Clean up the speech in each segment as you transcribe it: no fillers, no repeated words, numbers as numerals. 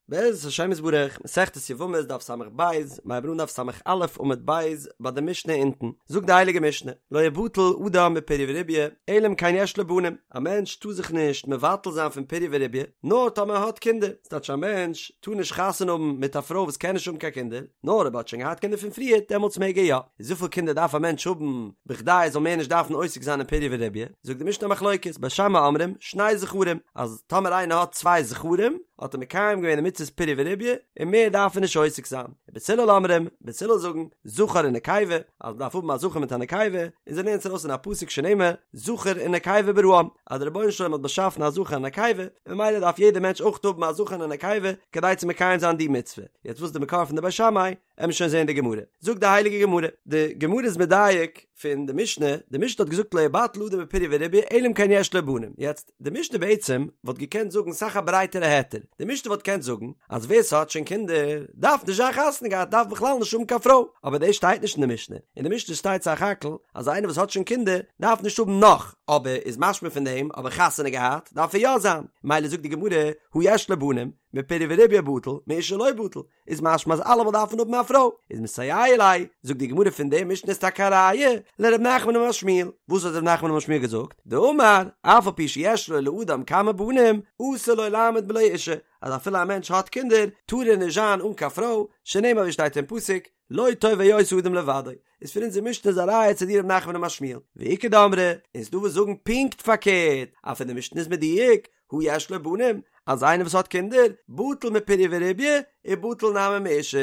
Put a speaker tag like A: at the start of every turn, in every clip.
A: בעזרת השם יתברך, מסכת יבמות דף ס"ב, מיר הייבן אן דף ס"א עמוד ב' ביי די משנה אונטן, זאגט די הייליגע משנה, לא יבטל אדם מפריה ורביה, אלא אם כן יש לו בנים, א מענטש טאר זיך נישט מבטל זיין פון פריה ורביה, נאר טאמער ער האט קינדער, ס'טייטש א מענטש טאר נישט חתונה האבן מיט א פרוי וואס קען נישט האבן קיין קינדער, נאר אויב ער האט שוין געהאט קינדער פון פריער, דעמאלטס מעג ער יא. איז וויפיל קינדער דארף א מענטש האבן בכדי ער זאל מער נישט דארפן עוסק זיין אין פריה ורביה? זאגט די משנה א מחלוקת, בית שמאי אומרים, שני זכרים, אז טאמער איינער האט צוויי זכרים, האט ער מקיים געווען די מצוות פריה ורביה, און מער דארף ער נישט עוסק זיין. ובית הלל אומרים, בית הלל זאגן, זכר ונקבה, אז מ'דארף האבן א זכר מיט א נקבה, און זיי לערנען עס ארויס אין א פסוק שנאמר, זכר ונקבה בראם, אז דער רבונו של עולם האט באשאפן א זכר און א נקבה, און ממילא דארף יעדער מענטש אויך האבן א זכר און א נקבה, כדי צו מקיים זיין די מצוה. יעצט וואס איז די מקור פון די בית שמאי? עמיר שוין זעהן די גמרא. זאגט די הייליגע גמרא, די גמרא איז מדייק פון די משנה, די משנה האט געזאגט לא יבטל אדם מפריה ורביה אלא אם כן יש לו בנים, יעצט די משנה בעצם וואלט געקענט זאגן סאך א ברייטערע היתר, די משנה וואלט געקענט זאגן אז ווער ס'האט שוין קינדער דארף נישט זיין חתונה געהאט דארף בכלל נישט האבן קיין פרוי, אבער דאס שטייט נישט אין די משנה, אין די משנה שטייט סך הכל אז איינער וואס האט שוין קינדער דארף נישט האבן נאך, אבער איז משמע פון דעם אבער חתונה געהאט דארף ער יא זיין, ממילא זאגט די גמרא הא יש לו בנים מפריה ורביה בטל מאשה לא בטל, איז משמע אז אלעמאל דארף מען האבן א פרוי, איז מסייע ליה, זאגט די גמרא פון די משנה איז טאקע א ראיה לר' נחמן אמר שמואל, וואס האט ר' נחמן אמר שמואל געזאגט? דאמר, אף על פי שיש לו לאדם כמה בנים, אסור לו לעמוד בלא אישה, אז אפילו א מענטש האט קינדער, טאר ער נישט זיין אן קיין פרוי, שנאמר ווי שטייט אין פסוק, לא טוב היות האדם לבדו, איז פון אונזער משנה איז א ראיה צו די ר' נחמן אמר שמואל, ואיכא דאמרי, און ס'דא וואס זאגן פונקט פארקערט, אז פון די משנה איז מדויק, הא יש לו בנים, אז איינער וואס האט קינדער, בטל מפריה ורביה, ובטל נמי מאשה,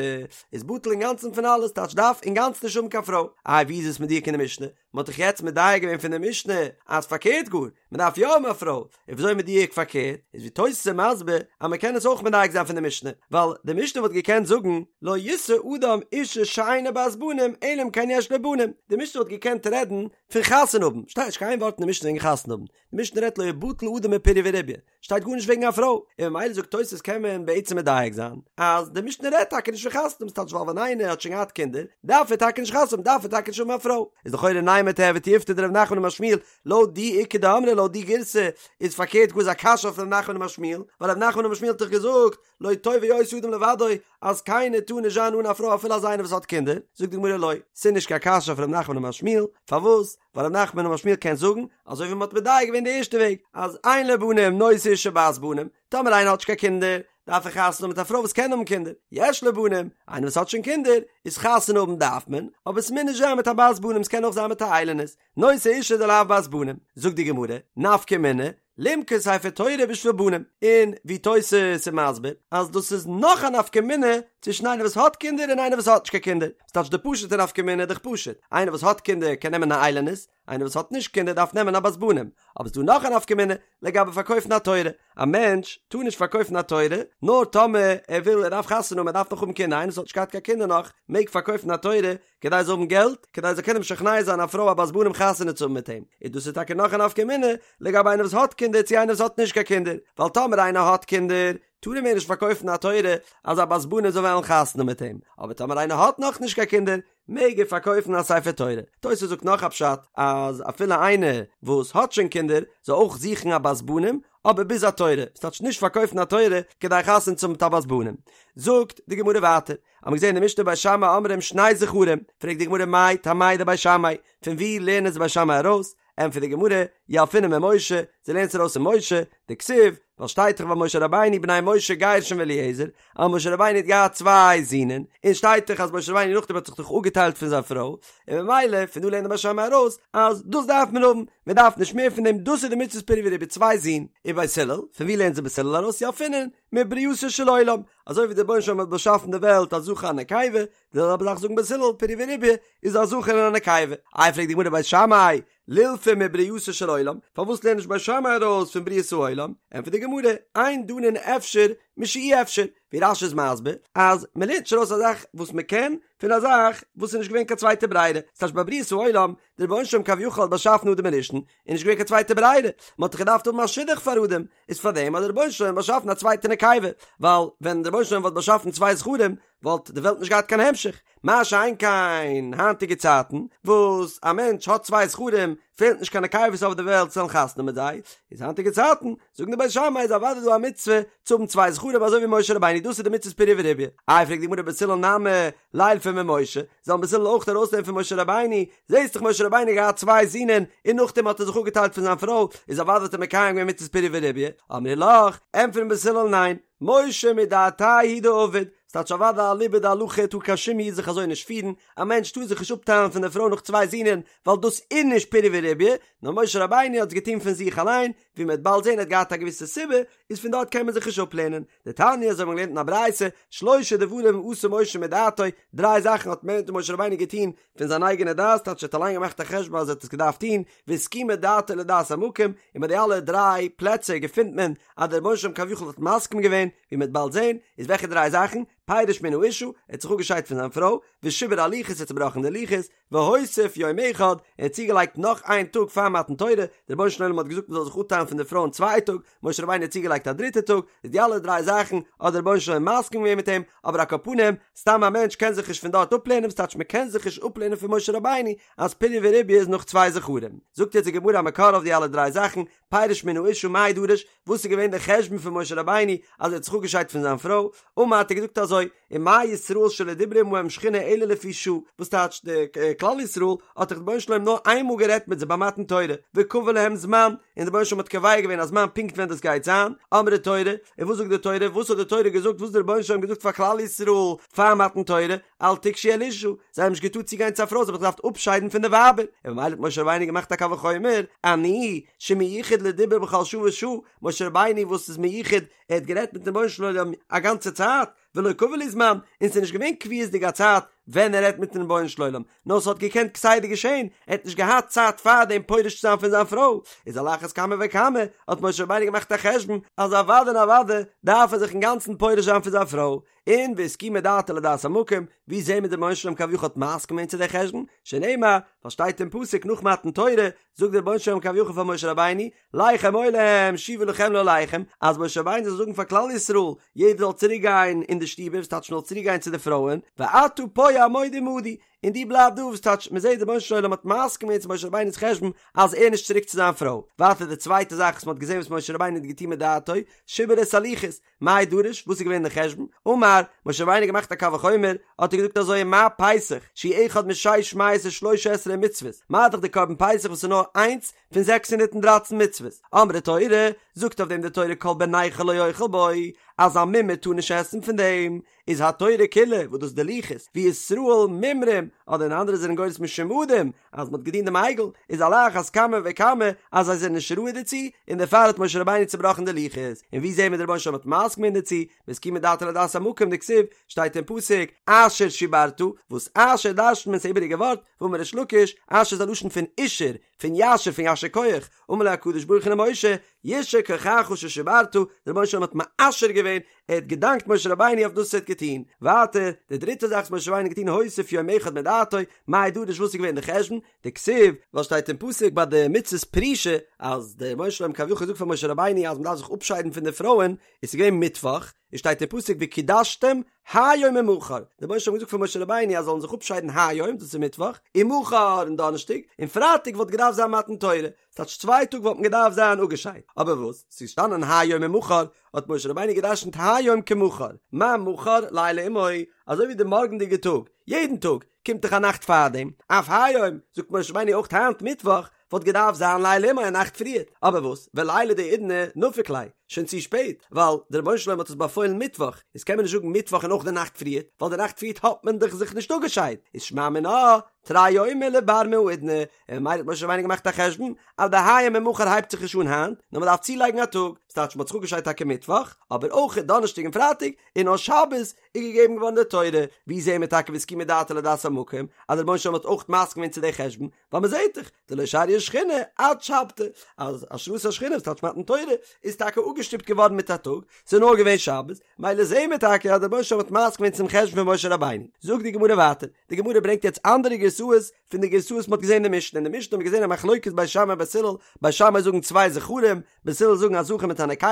A: איז בטל אינגאנצן פון אלעס, טייטש דארף אינגאנצן נישט האבן קיין פרוי. איי ווי איז עס מדויק אין די משנה? מען האט דאך יעצט מדייק געווען פון די משנה אז פארקערט גאר, מען דארף יא האבן א פרוי, און וויאזוי מדויק פארקערט? איז ווי תוס' איז מסביר אז מען קען עס אויך מדייק זיין פון די משנה, ווייל די משנה וואלט געקענט זאגן לא ישא אדם אישה שאינה בת בנים אלא אם כן יש לו בנים, די משנה וואלט געקענט רעדן פון חתונה האבן, שטייט נישט קיין ווארט אין די משנה וועגן חתונה האבן, די משנה רעדט לא יבטל אדם מפריה ורביה, שטייט גארנישט וועגן א פרוי, און ממילא זאגט תוס' קען מען בעצם מדייק זיין אז די משנה רעדט טאקע נישט פון חתונה האבן, ס'טייטש ווייל ווען איינער האט שוין געהאט קינדער דארף ער טאקע נישט חתונה האבן, דארף ער טאקע נישט האבן א פרוי, איז לכאורה נימא תיהוי תיובתא דרב נחמן אמר שמואל, לויט די איכא דאמרי לויט די גירסא איז פארקערט גאר איז א קשיא אויף רב נחמן אמר שמואל, ווייל רב נחמן אמר שמואל האט דאך געזאגט לא טוב היות האדם לבדו אז קיינער טאר נישט זיין אן א פרוי אפילו אז איינער וואס האט קינדער, זאגט די גמרא לא, ס'איז נישט קיין קשיא אויף רב נחמן אמר שמואל, פארוואס? ווייל רב נחמן אמר שמואל קען זאגן, אזוי ווי מ'האט מדייק געווען די ערשטע וועג, אז אין לו בנים נושא אישה בת בנים, טאמער איינער האט נישט קיין קינדער, דארף ער חתונה האבן מיט א פרוי וואס קען האבן קינדער, יש לו בנים, איינער וואס האט שוין קינדער, איז חתונה האבן דארף מען, אבער ס'מוז נישט זיין מיט א בת בנים, ס'קען אויך זיין מיט א איילונית, נושא אישה דלאו בת בנים, זאגט די גמרא, נפקא מינה, למכור ספר תורה בשביל בנים, און ווי תוס' איז מסביר אז דאס איז נאך א נפקא מינה צווישן איינער וואס האט קינדער און איינער וואס האט נישט קיין קינדער, ס'טייטש די פשוט'ע נפקא מינה איז דאך פשוט, איינער וואס האט קינדער קען נעמען א איילונית, איינער וואס האט נישט קינדער דארף נעמען א בת בנים, אבער ס'דא נאך א נפקא מינה לגבי פארקויפן א תורה, א מענטש טאר נישט פארקויפן א תורה נאר טאמער ער וויל ער דארף חתונה האבן ער דארף נאך האבן קינדער, איינער וואס האט נישט געהאט קיין קינדער נאך מעג פארקויפן א תורה כדי ער זאל האבן געלט, כדי ער זאל קענען משכנע זיין א פרוי א בת בנים חתונה צו האבן מיט אים, און דאס איז טאקע נאך א נפקא מינה לגבי איינער וואס האט קינדער צו איינער וואס האט נישט קיין קינדער, ווייל טאמער איינער האט קינדער טאר ער מער נישט פארקויפן א תורה אז א בת בנים זאל וועלן חתונה מיט אים, אבער טאמער איינער האט נאך נישט קיין קינדער מעג ער פארקויפן א ספר תורה. תוס' זאגט נאך א פשט אז אפילו איינער וואס האט שוין קינדער זאל אויך זוכן א בת בנים, אבער ביז א תורה, ס'טייטש נישט פארקויפן א תורה כדי חתונה צו האבן מיט א בת בנים. זאגט די גמרא ווייטער, האבן מיר געזען אין די משנה בית שמאי אומרים שני זכרים, פרעגט די גמרא מאי טעמייהו דבית שמאי, פון וואו לערנען עס בית שמאי ארויס? ענטפערט די גמרא, ילפינן ממשה, זיי לערנען עס ארויס פון משה, דכתיב, ווייל שטייט דאך ביי משה רבינו בני משה גרשון ואליעזר, אז משה רבינו האט געהאט צוויי זינען, און שטייט דאך אז משה רבינו נאכדעם האט זיך דאך אפגעטיילט פון זיין פרוי, און ממילא פון דא לערנט די בית שמאי ארויס אז דאס דארף מען האבן, מען דארף נישט מער פון דעם, דאס איז די מצוות פריה ורביה צוויי זין. ובית הלל, פון וואו לערנט זיך בית הלל ארויס ילפינן מברייתו של עולם, אזוי ווי דער רבונו של עולם האט באשאפן די וועלט א זכר א נקבה, די זעלבע זאך זאגן בית הלל פריה ורביה איז א זכר און א נקבה. איי פרעגט די גמרא בית שמאי, לילפו מברייתו של עולם, פארוואס לערנט נישט בית שמאי ארויס פון בריאת העולם? ענטפערט די גמרא, אין דנין אפשר משאי אפשר, ווי רש"י איז מסביר אז מען לערנט נישט ארויס א זאך וואס מען קען פון א זאך וואס איז נישט געווען קיין צווייטע ברירה, ס'טייטש ביי בריאת העולם, דער רבונו של עולם כביכול האט באשאפן אדם הראשון, איז נישט געווען קיין צווייטע ברירה, מען האט דאך געדארפט האבן א שידוך פאר אדם, איז פאר דעם האט דער רבונו של עולם באשאפן א צווייטע נקבה, ווייל ווען דער רבונו של עולם וואלט באשאפן צוויי זכרים וואלט די וועלט נישט געהאט קיין המשך, מה שאין כן היינטיגע צייטן וואס א מענטש האט צוויי זכרים פעלט נישט קיין נקבות אויף די וועלט צו וועלן חתונה מיט זיי, איז היינטיגע צייטן זאגן די בית שמאי איז אוודאי דא א מצוה צו האבן צוויי זכרים. זכרים אזוי ווי משה רבינו דאס איז די מצות פריה ורביה. איי פרעגט די גמרא בית הלל נמי לילפו ממשה, זאלן בית הלל אויך ארויסלערנען פון משה רבינו, זעסט דאך משה רבינו האט געהאט צוויי זינען און נאכדעם האט ער זיך אפגעטיילט פון זיין פרוי, איז אוודאי האט ער מקיים געווען מצות פריה ורביה, אמרי לך, ענטפערן בית הלל ניין, משה מדעתיה הוא דעבד, ס'טייטש אוודאי אליבא דהלכה טאר קיין שום איד זיך אזוי נישט פירן, א מענטש טאר זיך נישט אפטיילן פון די פרוי נאך צוויי זינען, ווייל דאס איז נישט פריה ורביה, נאר משה רבינו האט עס געטון פון זיך אליין, ווי מ'וועט באלד זען ער האט געהאט א געוויסע סיבה, איז פון דארט קען מען זיך נישט אפלערנען. דתניא אזוי האט מען געלערנט אין א ברייתא, שלשה דברים עשה משה מדעתו, דריי זאכן האט משה רבינו געטון פון זיין אייגענע דעת, טייטש ער האט אליין געמאכט א חשבון אז ער האט עס געדארפט טון, והסכימה דעתו לדעת המקום, און ביי די אלע דריי פלעצער געפינט מען אז דער רבונו של עולם כביכול האט מסכים געווען, ווי מ'וועט באלד זען, איז וועלכע דריי זאכן? פירש מן האשה, ער האט זיך אפגעשיידט פון זיין פרוי, ושיבר הלוחות, ער האט צובראכן די לוחות, והוסיף יום אחד, ער האט צוגעלייגט נאך איין טאג פאר מתן תורה, דער רבונו של עולם האט געזאגט מען זאל זיך אפטיילן פון די פרויען צוויי טאג, משה רבינו האט צוגעלייגט א דריטע טאג, איז די אלע דריי זאכן האט דער רבונו של עולם מסכים געווען מיט אים, אבער על כל פנים, סתם א מענטש קען זיך נישט פון דארט אפלערנען, וואס טייטש מען קען זיך נישט אפלערנען פון משה רבינו אז פריה ורביה איז נאך צוויי זכרים. זאגט יעצט די גמרא א מקור אויף די אלע דריי זאכן, פירש מן האשה מאי דרש, וואס איז געווען דער חשבון פון משה רבינו אז ער האט זיך אפגעשיידט פון זיין פרוי, אמר האט ער געזאגט אזוי, ומה ישראל שלא דיברה עמהם שכינה אלא לפי שעה, וואס טייטש די כלל ישראל האט דאך דער רבונו של עולם נאר איינמאל גערעדט מיט זיי ביי מתן תורה, וקבע להם זמן, און דער רבונו של עולם האט קובע געווען א זמן פונקט ווען דאס גייט זיין, אמרה תורה, און וואס זאגט די תורה, וואס האט די תורה געזאגט, וואס האט דער רבונו של עולם געזאגט פאר כלל ישראל פאר מתן תורה, אל תגשו אל אשה, זיי האבן נישט געטארט צוגיין צו א פרוי, זיי האבן זיך געדארפט אפשיידן פון די ווייבער, און ממילא האט משה רבינו געמאכט א קל וחומר, אני, שמיוחד לדיבור בכל שעה ושעה, משה רבינו וואס איז מיוחד, ער האט גערעדט מיטן רבונו של עולם א גאנצע צייט, ולא קבע להו זמן, און ס'איז נישט געווען קביעות'דיג א צייט ווען ער רעדט מיטן רבונו של עולם, נאר ס'האט געקענט כסדר געשען, ער האט נישט געהאט צייט פארדעם פורש צו זיין פון זיין פרוי, איז על אחת כמה וכמה האט משה רבינו געמאכט א חשבון אז אוודאי און אוודאי דארף ער זיך אינגאנצן פורש זיין פון זיין פרוי, און והסכימה דעתו לדעת המקום, ווי זעהן מיר דער רבונו של עולם כביכול האט מסכים געווען צו די חשבון, שנאמר, ווייל שטייט אין פסוק נאך מתן תורה, זאגט דער רבונו של עולם כביכול פאר משה רבינו, לך אמור להם שובו לכם לאהליכם, אז משה רבינו זאל זאגן פאר כלל ישראל, יעדער זאל צוריק גיין אין די שטיבער, וואס טייטש מען זאל צוריק גיין צו די פרויען, ואתה פה עמוד עמדי, און דו בלייב דא, וואס טייטש מען זעט דער רבונו של עולם האט מסכים געווען צו משה רבינו'ס חשבון אז ער נישט צוריק צו זיין פרוי. ווייטער די צווייטע זאך וואס מען האט געזען וואס משה רבינו האט געטון מדעתו, שיבר את הלוחות, מאי דרש, וואס איז געווען די חשבון? אמר, משה רבינו האט געמאכט א קל וחומר, האט ער געזאגט אזוי מה פסח, שהוא אחד משש מאות ושלוש עשרה מצוות, מה דאך די קרבן פסח וואס איז נאר איינס פון 613 מצוות, אמרה תורה, זאגט אויף דעם די תורה כל בן נכר לא יאכל בו, אז א מומר טאר נישט עסן פון דעם, איז התורה כולה, וואס דאס איז די לוחות, וישראל מומרים, אדער אין אנדערע זענען גורס משומדים, אז מ'האט געדינט דעם עגל, איז על אחת כמה וכמה אז זיי זענען נישט ראוי דערצו, און דערפאר האט משה רבינו צובראכן די לוחות, און ווי זעהן מיר דער רבונו של עולם האט מסכים געווען דערצו, והסכימה דעתו לדעת המקום דכתיב, שטייט אין פסוק, אשר שברת, וואס אשר דרש'נט מען ס'איז איבעריגע ווארט, ואמר ריש לקיש, אשר איז א לשון פון אישור, פון יישר פון יישר כח, אמר לו הקדוש ברוך הוא למשה, יישר כחך ששברת, דער רבונו של עולם האט מאשר געווען, ער האט געדאנקט משה רבינו אויף דאס וואס ער האט געטון. ווייטער, די דריטע זאך וואס משה רבינו האט געטון הוסיף יום אחד מדעתו, מאי דרש וואס איז געווען די חשבון, דכתיב, ווייל שטייט אין פסוק ביי די מצות פרישה, אז דער רבונו של עולם כביכול זאגט פאר משה רבינו אז מען דארף זיך אפשיידן פון די פרויען, איז ס'איז געווען מיטוואך, און שטייט אין פסוק וקדשתם היום ומחר, דער רבונו של עולם האט געזאגט פאר משה רבינו אז זאלן זיך אפשיידן היום, דאס איז מיטוואך, ומחר און דאנערשטאג, און פרייטאג וואלט געדארפט זיין מתן תורה, ס'טייטש צוויי טאג וואלט מען געדארפט זיין אפגעשיידט, אבער וואס, ס'איז געשטאנען היום ומחר, האט משה רבינו גע'דרש'נט היום כמחר, מה מחר לילה עמו, אזוי ווי די מארגנדיגע טאג, יעדן טאג, קומט דאך א נאכט פארדעם, אף היום, זאגט משה רבינו אויך היינט מיטוואך, וואלט געדארפט זיין לילה עמו א נאכט פריערט, אבער וואס, וליליא דהאידנא נפיק ליה, שוין צו שפעט, ווייל דער רבונו של עולם האט עס באפוילן מיטוואך, איז קען מען נישט זאגן מיטוואך און אויך די נאכט פריערט, ווייל די נאכט פריערט האט מען דאך זיך נישט אפגעשיידט, איז שמע מינה, תרי יומי לבר מהאידנא, און ממילא האט משה רבינו געמאכט א חשבון אז די היום ומחר הייבט זיך נישט אן היינט, נאר מען דארף צולייגן א טאג, ס'טייטש מען האט זיך אפגעשיידט טאקע מיטוואך, אבער אויך דאנערשטאג און פרייטאג, און נאר שבת איז געגעבן געווארן די תורה, ווי זעהן מיר טאקע והסכימה דעתו לדעת המקום, אז דער רבונו של עולם האט אויך מסכים געווען צו די חשבון, ווייל מען זעהט דאך, דלא שריא שכינה עד שבתא, אז השראת השכינה וואס טייטש מתן תורה, איז טאקע אפגעשטופט געווארן מיט א טאג, ס'איז נאר געווען שבת, מילא זעהן מיר טאקע אז דער רבונו של עולם האט מסכים געווען צום חשבון פון משה רבינו. זאגט די גמרא ווייטער, די גמרא ברענגט יעצט אנדערע גרסאות פון די גרסאות מ'האט געזעהן אין די משנה, אין די משנה האט מען געזעהן א מחלוקת בית שמאי בית הלל, בית שמאי זאגן צוויי זכרים, בית הלל זאגן א זכר מיט א נקבה,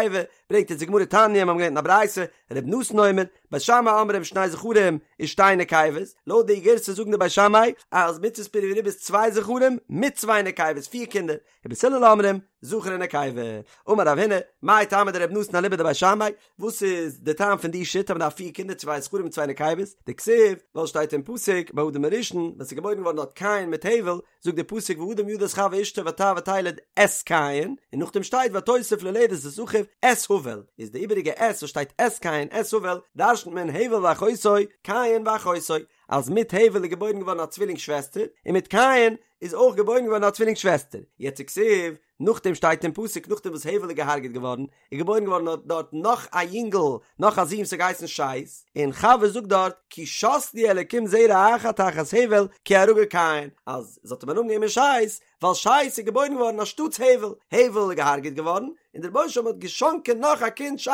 A: ברענגט יעצט די גמרא תניא, מיר האבן געלערנט אין א ברייתא, ר' נתן אומר, בית שמאי אומרים שני זכרים ושתי נקבות, לויט די גירסא זאגן די בית שמאי אז מצות פריה ורביה איז צוויי זכרים מיט צוויי נקבות, פיר קינדער, ובית הלל אומרים. זכר און נקבה. אמר רב הונא, מאי טעמא דרבי נתן אליבא דבית שמאי, וואס איז די טעם פון די שיטה אז מען דארף פיר קינדער צוויי זכרים און צוויי נקבות, דכתיב, ווייל שטייט אין פסוק ביי אדם הראשון ווען ס'איז געבוירן געווארן דארט קין מיט הבל, זאגט די פסוק והאדם ידע את חוה אשתו ותהר ותלד את קין, און נאכדעם שטייט ותוסף ללדת את אחיו את הבל, איז די איבעריגע את וואס שטייט את קין את הבל דרשנ'ט מען הבל ואחותו קין ואחותו, אז מיט הבל איז געבוירן געווארן א צווילינג שוועסטער, און מיט קין איז אויך געבוירן געווארן א צווילינג שוועסטער, יעצט וכתיב, נאכדעם שטייט אין פסוק נאכדעם וואס הבל איז געהארגעט געווארן, איז געבוירן געווארן דארט נאך א יונגל, נאך א זון וואס האט געהייסן שת, און חוה זאגט דארט, כי שת לי אלקים זרע אחר תחת הבל כי הרגו קין, אז זי האט אים א נאמען געגעבן שת, ווייל שת איז געבוירן געווארן אנשטאטס הבל, הבל איז געהארגעט געווארן, און דער רבונו של עולם האט געשאנקען נאך א קינד שת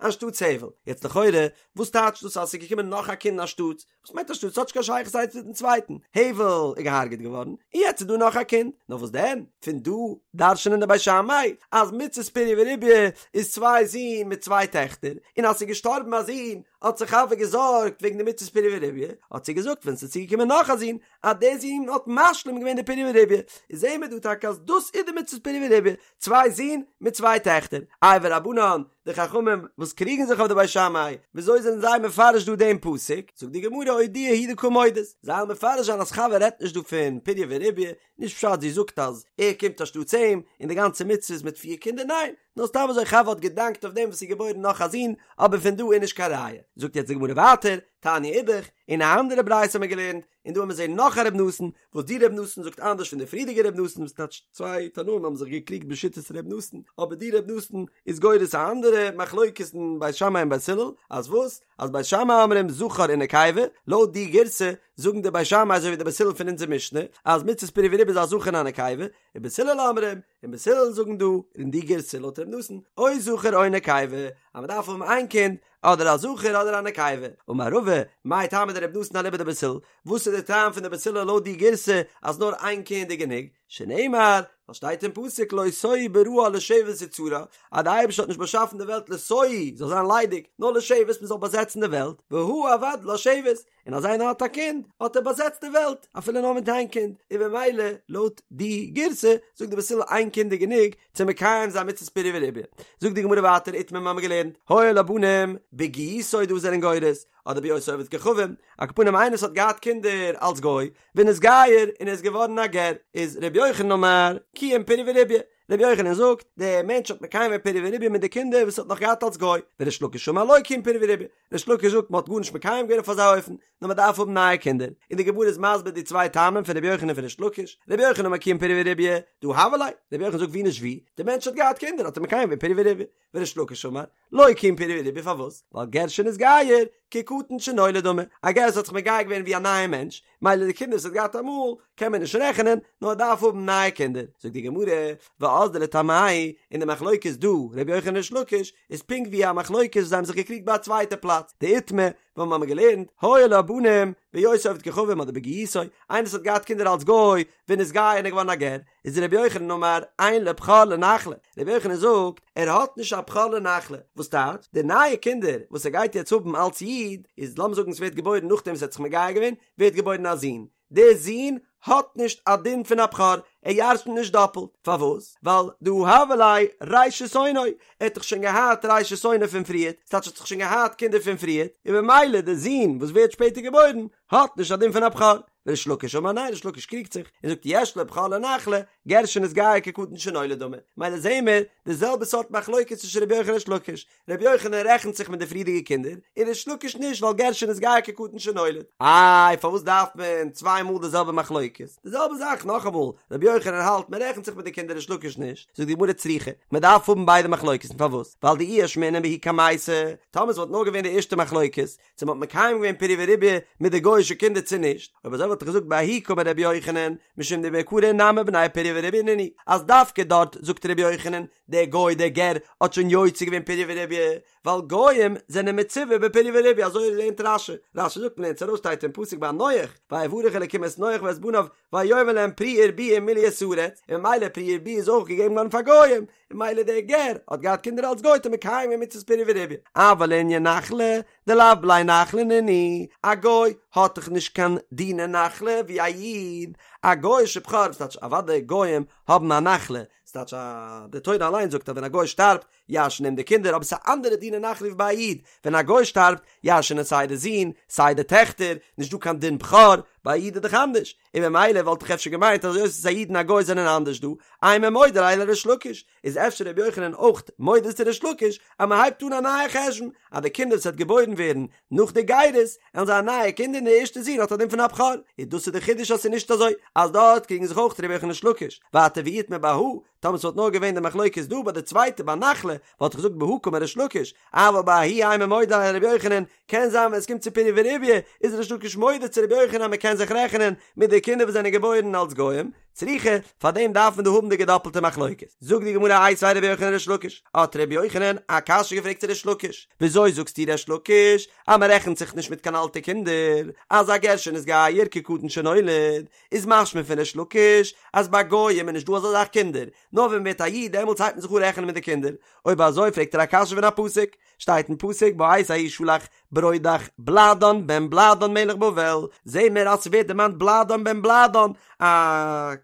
A: אנשטאטס הבל. יעצט לכאורה, וואס טייטשט דאס אז עס איז געקומען נאך א קינד אנשטאטס? וואס מיינט אנשטאטס? ס'האט נישט קיין שייכות איינס מיטן צווייטן. הבל איז געהארגעט געווארן, און יעצט איז דא נאך א קינד. נאר וואס דען? פון דא דרש'נען די בית שמאי אז מצות פריה ורביה איז צוויי זין מיט צוויי טעכטער, און אז ס'איז געשטארבן א זון האט זיך חוה געזארגט וועגן די מצות פריה ורביה, האט זי געזאגט ווען ס'איז צוגעקומען נאך א זון, אז דער זון האט משלים געווען די פריה ורביה. איז זעהן מיר דא טאקע אז דאס איז די מצות פריה ורביה, צוויי זין מיט צוויי טעכטער. איי ורבנן, די חכמים וואס קריגן זיך אויף די בית שמאי, וויאזוי זענען זיי מפרש דא דעם פסוק? זאגט די גמרא אודויי הוא דקא מודית, זיי וועלן מפרש זיין אז חוה רעדט נישט דא פון פריה ורביה, נישט פשט זי זאגט אז ער קומט אנשטאטס אים, און די גאנצע מצוה איז מיט פיר קינדער, ניין, נאר סתם אזוי חוה האט געדאנקט אויף דעם וואס ס'איז געבוירן נאך א זון, אבער פון דא איז נישט קיין ראיה. זאגט יעצט די גמרא ווייטער, תניא אידך, אין א אנדערע ברייתא האבן מיר געלערנט, און דא האבן מיר זעהן נאך א ר' נתן, וואס די ר' נתן זאגט אנדערש פון די פריערדיגע ר' נתן, וואס טייטש צוויי תנאים האבן זיך געקריגט בשיטת ר' נתן, אבער די ר' נתן איז גורס א אנדערע מחלוקת אין בית שמאי און בית הלל, אז וואס? אז בית שמאי אומרים זכר ונקבה, לויט די גירסא זאגן די בית שמאי אזוי ווי די בית הלל פון אונזער משנה, אז מצות פריה ורביה איז א זכר און א נקבה, ובית הלל אומרים, און בית הלל זאגן דא אין די גירסא לויט ר' נתן, או זכר או נקבה, אז מען דארף האבן איין קינד, אדער א זכר אדער א נקבה. אמר רבא, מאי טעמא דרבי נתן אליבא דבית הלל, וואס איז די טעם פון די בית הלל לויט די גירסא אז נאר איין קינד איז גענוג? שנאמר, ווייל שטייט אין פסוק לא תוהו בראה לשבת יצרה, אז די אייבערשטער האט נישט באשאפן די וועלט לתוהו, זאל זיין ליידיג, נאר לשבת מען זאל באזעצן די וועלט, והא עבד לה שבת, און אז איינער האט א קינד האט ער באזעצט די וועלט אפילו נאר מיט איין קינד, און במילא לויט די גירסא זאגט די בית הלל איין קינד איז גענוג צו מקיים זיין מצות פריה ורביה. זאגט די גמרא ווייטער איתמר מיר האבן געלערנט היו לו בנים בגיותו דא זענען גורס אדער בהיותו עובד כוכבים, על כל פנים איינער וואס האט געהאט קינדער אלס גוי ונתגייר און ער איז געווארן א גר איז ר' יוחנן אמר קיים פריה ורביה, רבי יוחנן זאגט, דער מענטש האט מקיים געווען פריה ורביה מיט די קינדער וואס ער האט נאך געהאט אלס גוי, וריש לקיש אמר לא קיים פריה ורביה, ריש לקיש זאגט מען האט גארנישט מקיים געווען אויף אזא אופן, נאר מען דארף האבן נייע קינדער, און די גמרא איז מסביר די צוויי טעמים פון רבי יוחנן און פון ריש לקיש, רבי יוחנן אמר קיים פריה ורביה, דהא הוו ליה, רבי יוחנן זאגט ווי נישט ווי, דער מענטש האט געהאט קינדער האט ער מקיים געווען פריה ורביה, וריש לקיש אמר, לא קיים פריה ורביה פארוואס? ווייל גר שנתגייר, כקטן שנולד דמי, א גר וואס האט זיך מגייר געווען ווי א נייע מענטש, מילא די קינדער וואס ער האט געהאט אמאל קען מען נישט רעכענען, נאר ער דארף האבן נייע קינדער. זאגט די גמרא, ואזדו לטעמייהו, און די מחלוקת דא, רבי יוחנן ריש לקיש, איז פונקט ווי א מחלוקת וואס זיי האבן זיך געקריגט ביי א צווייטע פלאץ, דאיתמר, וואו מיר האבן געלערנט, היו לו בנים, בהיותו עובד כוכבים אדער בגיותו, איינער וואס האט געהאט קינדער אלס גוי, ונתגייר און ער איז געווארן א גר, איז רבי יוחנן אמר אין לו בכור לנחלה, רבי יוחנן זאגט ער האט נישט א בכור לנחלה, וואס טייטש די נייע קינדער וואס ער גייט יעצט האבן אלס איד, איז לאמיר זאגן ס'ווערט געבוירן נאכדעם וואס ער האט זיך מגייר געווען, ווערט געבוירן א זון, דער זון האט נישט א דין פון א בכור, ער ירש'נט נישט דאפלט, פארוואס? ווייל דהא הוה ליה ראשית אונו, ער האט דאך שוין געהאט ראשית אונו פון פריערט, ס'טייטש ער האט דאך שוין געהאט קינדער פון פריערט, און במילא דער זון וואס ווערט שפעטער געבוירן האט נישט א דין פון א בכור. וריש לקיש אמר ניין ריש לקיש קריגט זיך און זאגט יש לו בכור לנחלה גר שנתגייר כקטן שנולד דמי מילא זעהן מיר די זעלבע סארט מחלוקת צווישן רבי יוחנן און ריש לקיש רבי יוחנן רעכנט זיך מיט די פריערדיגע קינדער און ריש לקיש נישט ווייל גר שנתגייר כקטן שנולד איי פארוואס דארף מען צוויי מאל די זעלבע מחלוקת די זעלבע זאך נאכאמאל רבי יוחנן האלט מען רעכנט זיך מיט די קינדער ריש לקיש נישט זאגט די גמרא צריכא מען דארף האבן ביידע מחלוקת'ן פארוואס ווייל דאי אשמעינן בההיא קמייתא טאמער עס וואלט נאר געווען די ערשטע מחלוקת צו מ'האט מקיים געווען פריה ורביה מיט די גוי'אישע קינדער צו נישט, אויב אזוי וואלט איך געזאגט בההיא קאמר רבי יוחנן, משום דמעיקרא נמי בני פריה ורביה נינהו, אז דווקא דארט זאגט רבי יוחנן, דער גוי דער גר האט שוין יוצא געווען פריה ורביה, ווייל גוים זענען מצווה בפריה ורביה, אזוי לערנט רש"י, רש"י זאגט מ'לערנט עס ארויס שטייט אין פסוק ביי נח, ויברך אלקים את נח ואת בניו ויאמר להם פרו ורבו ומלאו את הארץ, און ממילא פריה ורביה איז אויך געגעבן געווארן פאר גוים, און ממילא דער גר האט געהאט קינדער אלס גוי האט ער מקיים געווען מצות פריה ורביה, אבל לענין נחלה, דלאו בני נחלה נינהו, א גוי האט דאך נישט קיין דיני נחלה ווי א איד, א גוי'אישע בכור, וואס טייטש אוודאי גוים האבן א נחלה, ס'טייטש אז די תורה אליין זאגט אז ווען א גוי שטארבט ירש'ן אים די קינדער, אבער ס'איז א אנדערע דין אין נחלה ווי ביי א איד, ווען א גוי שטארבט ירש'נען סיי די זין סיי די טעכטער, נישט דא קיין דין בכור, ביי א איד איז דאך אנדערש, און ממילא וואלט איך אפשר געמיינט אז היות אז א איד און א גוי זענען אנדערש דא, אימא מודה ליה לריש לקיש, איז אפשר רבי יוחנן אויך מודה צו ריש לקיש אז מען הייבט אן א נייע חשבון אז די קינדער וואס וועט געבוירן ווערן נאך די גירות וועלן זיין נייע קינדער און די ערשטע זון האט א דין פון א בכור, איז דאס איז די חידוש אז ס'איז נישט אזוי אז דארט קריגן זיך אויך רבי יוחנן און ריש לקיש, ווייטער ואי איתמר בהא, טאמער ס'וואלט נאר געווען די מחלוקת דא ביי די צווייטע ביי נחלה וואלט איך געזאגט בהא קאמר ריש לקיש, אבל בההיא אימא מודה ליה לרבי יוחנן, קען זיין ווען עס קומט צו פריה ורביה איז ריש לקיש מודה צו רבי יוחנן אז מען קען זיך רעכענען מיט די קינדער וואס זענען געבוירן אלס גוים, צריכא, פאר דעם דארף מען דא האבן די געדאפלטע מחלוקת. זאגט די גמרא איתיביה רבי יוחנן לריש לקיש, האט רבי יוחנן א קשיא געפרעגט צו ריש לקיש, וויאזוי זאגסטו ריש לקיש אז מען רעכנט זיך נישט מיט קיין אלטע קינדער, אז א גר שנתגייר כקטן שנולד, איז משמע פון ריש לקיש אז ביי גוים איז נישט דא אזא זאך קינדער, נאר ווען מען ווערט א איד דעמאלטס הייבט מען זיך אן רעכענען מיט די קינדער, אויב אזוי פרעגט ער א קשיא פון א פסוק, שטייט אין פסוק בעת ההיא שלח ברודך בלאדן בן בלאדן מלך בבל, זעהן מיר אז ס'ווערט דערמאנט בלאדן בן בלאדן, א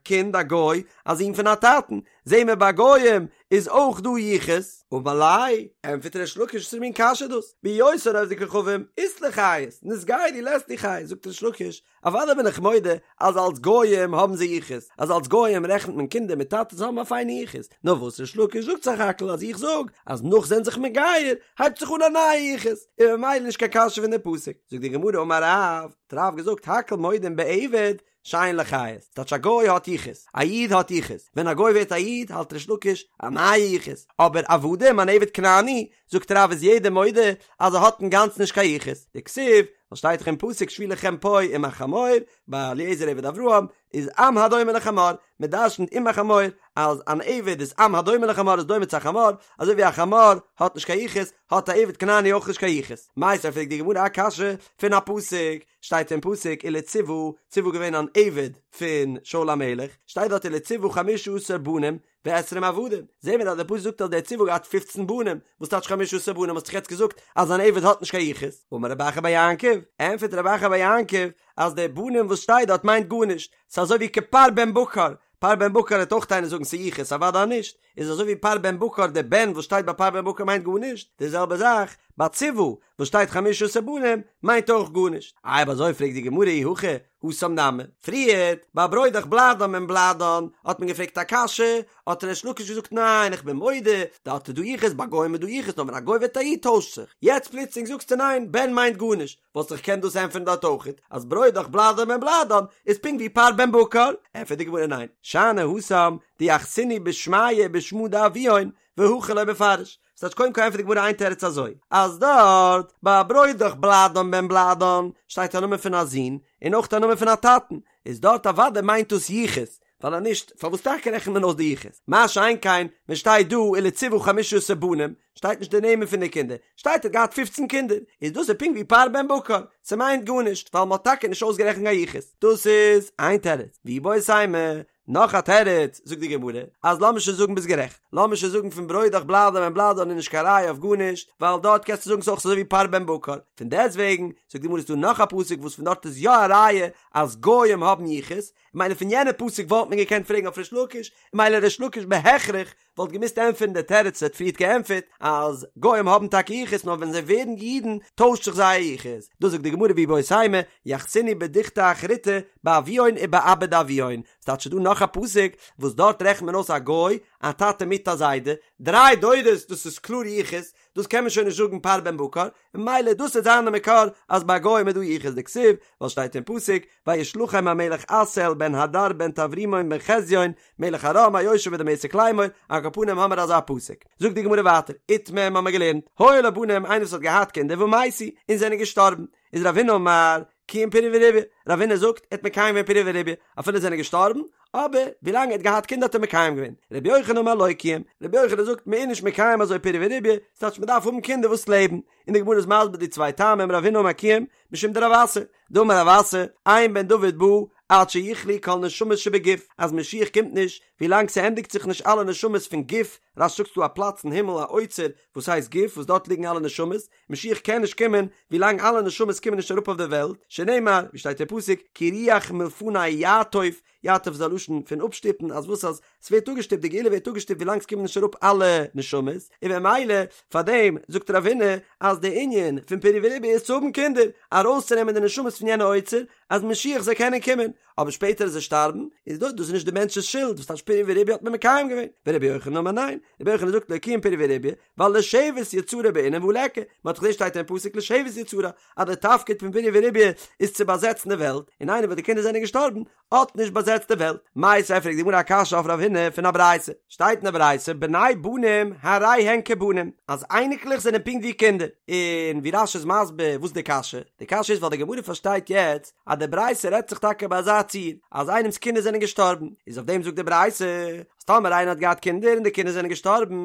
A: קינד א גוי, א זון פון א טאטן, זעהן מיר ביי גוים איז אויך דא יחוס. אמר ליה, ענטפערט ריש לקיש וואס פאר מין קשיא איז דאס, בהיותן עובדי כוכבים אית להו חייס, נתגיירו לית להו חייס, זאגט ריש לקיש, אוודאי בין איך מודה אז אלס גויים האבן זיי יחוס, אז אלס גויים רעכנט מען קינדער מיט טאטעס האבן א פיינע יחוס, נאר וואס ריש לקיש זאגט סך הכל אז איך זאג אז נאך זענען זיך מגייר הייבט זיך אן א נייע יחוס, און ממילא נישט קיין קשיא פון די פסוק. זאגט די גמרא אמר רב, האט רב געזאגט הכל מודים בעבד שאין לו חיות, ס'טייטש א גוי האט יחוס, א איד האט יחוס, ווען א גוי ווערט א איד האלט ריש לקיש א נייע יחוס, אבער עבדים אן עבד כנעני זאגט רב איז יעדער מודה אז ער האט אינגאנצן נישט קיין יחוס, דכתיב, ווייל שטייט דאך אין פסוק שבו לכם פה עם החמור, ביי אליעזר עבד אברהם, איז עם הדומה לחמור, מען דרשנ'ט עם החמור אז אן עבד איז עם הדומה לחמור איז דומה צו א חמור, אזוי ווי א חמור האט נישט קיין יחוס, האט א עבד כנעני אויך נישט קיין יחוס. מיתיבי פרעגט די גמרא א קשיא פון א פסוק, שטייט אין פסוק ולציבא, ציבא געווען אן עבד פון שאול המלך, שטייט דארט ולציבא חמשה עשר בנים, ועשרים עבדים, זעהן מיר אז דער פסוק זאגט אז דער ציבא האט געהאט פופצן בנים, וואס טייטש חמשה עשר בנים האסט דאך יעצט געזאגט אז אן עבד האט נישט קיין יחוס, אמר רב אחא בר יעקב, ענטפערט רב אחא בר יעקב אז די בנים וואס שטייט דארט מיינט גארנישט, ס'איז אזוי ווי כפר בן בקר, פר בן בקר וועט אויך איינער זאגן ס'איז יחוס, אוודאי נישט, איז אזוי ווי פר בן בקר די בן וואס שטייט ביי פר בן בקר מיינט גארנישט, די זעלבע זאך ביי ציבא וואס שטייט חמשה עשר בנים מיינט אויך גארנישט. אויב אזוי פרעגט די גמרא אי הכי התם נמי, פריערט ביי ברודך בלאדן בן בלאדן האט מען געפרעגט א קשיא, האט ריש לקיש געזאגט ניין איך בין מודה, דארט איז דא יחוס ביי גוים איז דא יחוס נאר ווען א גוי ווערט א איד טוישט זיך, יעצט פלוצלינג זאגסטו ניין בן מיינט גארנישט, וואלסט דאך געקענט דאס ענטפערן דארט אויכעט אז ברודך בלאדן בן בלאדן איז פונקט ווי פר בן בקר, ענטפערט די גמרא ניין, שאני התם דיחסינהו בשמייהו ובשמא דאבוהון והכא לא מפרש, ס'טייטש קודם כל ענטפערט די גמרא איין תירוץ אזוי, אז דארט ביי ברודך בלאדן בן בלאדן שטייט א נאמען פון א זון און אויך א נאמען פון א טאטן, איז דארט אוודאי מיינט דאס יחוס, ווייל אז נישט פארוואס טאקע רעכנט מען אויס די יחוס? מה שאין כן ווען שטייט דא ולציבא חמשה עשר בנים שטייט נישט די נעמען פון די קינדער, שטייט ער האט געהאט פופצן קינדער, איז דאס איז פונקט ווי פר בן בקר, ס'מיינט גארנישט ווייל מ'האט טאקע נישט אויסגערעכנט קיין יחוס, דאס איז איין תירוץ, ואיבעית אימא נאך א תירוץ, זאגט די גמרא, אז לאמיר שוין זאגן ביסט גערעכט, לאמיר שוין זאגן פון ברודך בלאדן בן בלאדן איז נישט קיין ראיה אויף גארנישט, ווייל דארט קענסטו זאגן ס'איז אויך אזוי ווי פר בן בקר, פון דעסטוועגן, זאגט די גמרא איז דא נאך א פסוק וואס פון דארט איז יא א ראיה אז גוים האבן יחוס, מילא פון יענע פסוק וואלט מען געקענט פרעגן אויף ריש לקיש, מילא ריש לקיש בהכרח וואלט געמוזט ענטפערן די תירוץ וואס ער האט פריערט געענטפערט אז גוים האבן טאקע יחוס נאר ווען זיי ווערן אידן טוישט זיך זייער יחוס, דאס זאגט די גמרא ואיבעית אימא יחסינהו בדוכתא אחריתי באבוהון ובאבא דאבוהון, ס'טייטש ס'דא נאך א פסוק וואס דארט רעכנט מען אויס א גוי א טאטע מיט א זיידע, דריי דורות דאס איז קלאר יחוס, דאס קען מען שוין נישט זאגן פר בן בקר, ממילא דאס וועט זיין די מקור אז ביי גוים איז דא יחוס דכתיב, ווייל שטייט אין פסוק וישלחם המלך אסאל בן הדר בן טברימון בן חזיון מלך ארם היושב בדמשק לאמור, על כל פנים האמער אזא פסוק. זאגט די גמרא ווייטער, איתמר האמער געלערנט, היו לו בנים איינער וואס האט געהאט קינדער ומתו און זענען געשטארבן, איז רב הונא אמר קיים פריה ורביה, רב הונא זאגט ער האט מקיים געווען פריה ורביה אפילו זענען געשטארבן, אבער ווילאנג ער האט געהאט קינדער האט ער מקיים געווען, רבי יוחנן אמר לא קיים, רבי יוחנן זאגט מען איז נישט מקיים אזוי פריה ורביה, ס'טייטש מען דארף האבן קינדער וואס לעבן, און די גמרא איז מסביר די צוויי טעמים רב הונא אמר קיים, משום דרב אסי, דאמר רב אסי, אין בן דוד בא. עד שיכלו כל נשמות שבגוף, אז משיח קומט נישט ווילאנג ס'ענדיגט זיך נישט אלע נשמות פון גוף, רש"י זאגט ס'דא א פלאץ אין הימל א אוצר וואס הייסט גוף וואס דארט ליגן אלע נשמות, משיח קען נישט קומען ווילאנג אלע נשמות קומען נישט אראפ אויף די וועלט, שנאמר, ווי שטייט אין פסוק, כי רוח מלפני יעטוף, יעטוף איז א לשון פון אפשטופן, אז וואס אז ס'ווערט אפגעשטופט, די גאולה ווערט אפגעשטופט ווילאנג ס'קומען נישט אראפ אלע נשמות, און במילא פאר דעם זאגט רב הונא אז די ענין פון פריה ורביה איז צו האבן קינדער, ארויסצונעמען די נשמות פון יענע אוצר, אז משיח זאל קענען קומען, אבער שפעטער אז זיי שטארבן, איז דאס דאס איז נישט די מענטש'ס שולד, וואס טייטש פריה ורביה האט מען מקיים געווען, ורבי יוחנן אמר ניין, רבי יוחנן זאגט לא קיים פריה ורביה, ווייל לשבת יצרה בעינן והא ליכא, מען האט דאך געזען שטייט אין פסוק לשבת יצרה, אז די תפקיד פון פריה ורביה איז צו באזעצן די וועלט, און איינער וואס די קינדער זענען געשטארבן, האט נישט באזעצט די וועלט. מיתיבי פרעגט די גמרא א קשיא אויף רב הונא פון א ברייתא, שטייט אין די ברייתא בני בנים הרי הן כבנים, אז אייניקלעך זענען פונקט ווי קינדער, און ווי רש"י איז מסביר וואס די קשיא, די קשיא איז ווייל די גמרא פארשטייט יעצט אז די ברייתא רעדט זיך טאקע ביי אזא ציור אז איינעמס קינדער זענען געשטארבן, איז אויף דעם זאגט די ברייתא אז טאמער איינער האט געהאט קינדער און די קינדער זענען געשטארבן,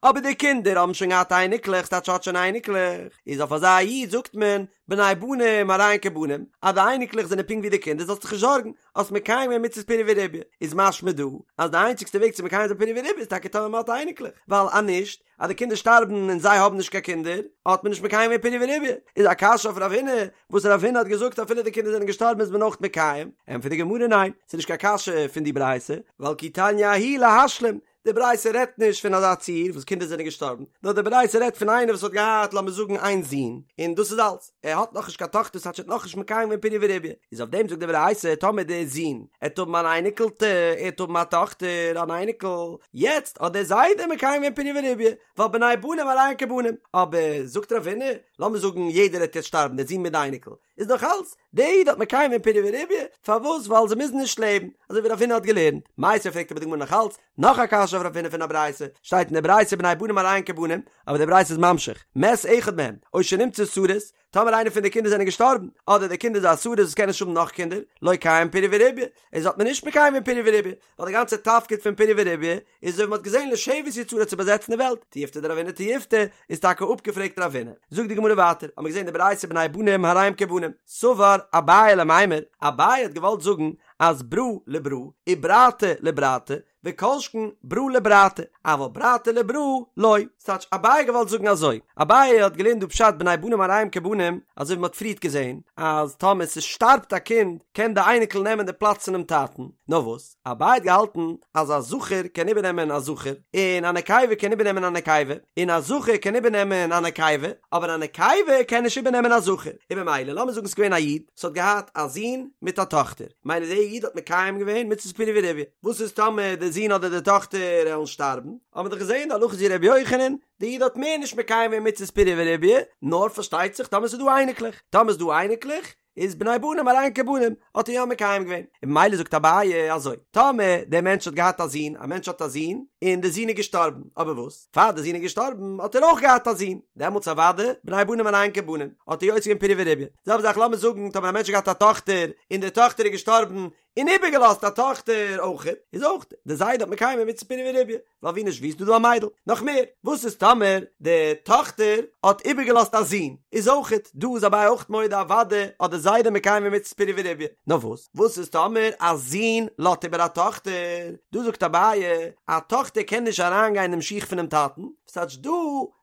A: אבער די קינדער האבן שוין געהאט אייניקלעך, ס'טייטש האט שוין אייניקלעך, איז אויף אזא איד זאגט מען בני בנים הרי הן כבנים, אז די אייניקלעך זענען פונקט ווי די קינדער זאלסט זיך נישט זארגן, האסט מקיים געווען מצות פריה ורביה, איז משמע דא אז די איינציגסטע וועג צו מקיים זיין פריה ורביה איז טאקע טאמער מען האט אייניקלעך, ווייל אז נישט, אז די קינדער שטארבן און זיי האבן נישט קיין קינדער, האט מען נישט מקיים געווען פריה ורביה, איז א קשיא אויף רב הונא, וואס רב הונא האט געזאגט אפילו די קינדער זענען געשטארבן איז מען אויך מקיים, ענטפערט די גמרא ניין, ס'איז נישט קיין קשיא פון די ברייתא, ווייל כי תניא ההיא להשלים, די ברייתא רעדט נישט פון אזא ציור וואס קינדער זענען געשטארבן, נאר די ברייתא רעדט פון איינער וואס האט געהאט לאמיר זאגן איין זון, און דאס איז אלץ, ער האט נאכנישט קיין טאכטער ס'טייטש ער האט נאכנישט מקיים געווען פריה ורביה, איז אויף דעם זאגט די ברייתא טאמער דער זון עט האבן אן אייניקלטע, ער עט האבן א טאכטער אן אייניקל, יעצט האט דער זיידע מקיים געווען פריה ורביה, ווייל בני בנים הרי הן כבנים, אבער זאגט רב הונא, לאמיר זאגן יעדער עט יעצט שטארבן דער זון מיט די אייניקל, איז נאך אלץ, דער איד האט מקיים געווען פריה ורביה, פארוואס? ווייל זיי מוזן נישט לעבן, אזוי ווי רב הונא האט געלערנט. מיתיבי פרעגט אבער די גמרא נאך אלץ, נאך א קשיא אויף רב הונא פון א ברייתא, שטייט אין די ברייתא בני בנים הרי הן כבנים, אבער די ברייתא איז ממשיך, מת אחד מהם, או שנמצא סריס, טאמער איינער פון די קינדער זענען געשטארבן, אדער די קינד איז א סריס וואס קען נישט האבן נאך קינדער, לא קיים פריה ורביה, איז האט מען נישט מקיים געווען פריה ורביה, ווייל די גאנצע תפקיד פון פריה ורביה איז אזוי ווי מ'האט געזען לשבת יצרה צו באזעצן די וועלט, תיובתא דרב הונא תיובתא איז טאקע אפגעפרעגט רב הונא. זאגט די גמרא ווייטער, האמיר געזען די ברייתא בני בנים הרי הם כבנים, סבר אביי למימר, אביי האט געוואלט זאגן אז ברא לברא וברתא לברתא וכל שכן ברא לברתא, אבל ברתא לברא לא, ס'טייטש אביי האט געוואלט זאגן אזוי, אביי האט געלערנט דא פשט בני בנים הרי הם כבנים, אזוי ווי מ'האט פריערט געזען אז טאמער ס'שטארבט א קינד קען די אייניקל נעמען די פלאץ פונעם טאטן, נאר וואס? אביי האט געהאלטן אז א זכר קען איבערנעמען א זכר, און א נקבה קען איבערנעמען א נקבה, און א זכר קען איבערנעמען א נקבה, אבער א נקבה קען נישט איבערנעמען א זכר, און במילא לאמיר זאגן ס'איז געווען א איד וואס האט געהאט א זון מיט א טאכטער, מילא דער איד האט מקיים געווען מצות פריה ורביה, וואס איז טאמער די זון אדער די טאכטער עלן שטארבן, האבן מיר דאך געזען די הלכה איז ווי ר' יוחנן, די איד האט מער נישט מקיים געווען מצות פריה ורביה, נאר פארשטייט זיך טאמער ס'איז דא אייניקלעך, טאמער איז דא אייניקלעך, איז בני בנים הרי הן כבנים, האט ער יא מקיים געווען, און ממילא זאגט אביי אזוי, טאמער דער מענטש האט געהאט א זון, א מענטש האט א זון, און דער זון איז געשטארבן, אבער וואס, פאר דער זון איז געשטארבן האט ער אויך געהאט א זון, דעמאלטס אוודאי, בני בנים הרי הן כבנים, האט ער יוצא געווען פריה ורביה, זעלבע זאך לאמיר זאגן טאמער א מענטש האט געהאט א טאכטער, און די טאכטער איז געשטארבן, און איבערגעלאזט א טאכטער אויכעט, איז אויך די זיידע האט מקיים געווען מצות פריה ורביה, ווייל ווי נישט ווי איז דא דא א מיידל. נאך מער, וואס איז טאמער די טאכטער האט איבערגעלאזט א זון, איז אויכעט דא איז אביי אויכט מודה אוודאי האט די זיידע מקיים געווען מצות פריה ורביה. נאר וואס, וואס איז טאמער א זון לאזט איבער א טאכטער, דא זאגט אביי, א טאכטער קען נישט אריינגיין אינעם שיך פונעם טאטן, ס'טייטש דא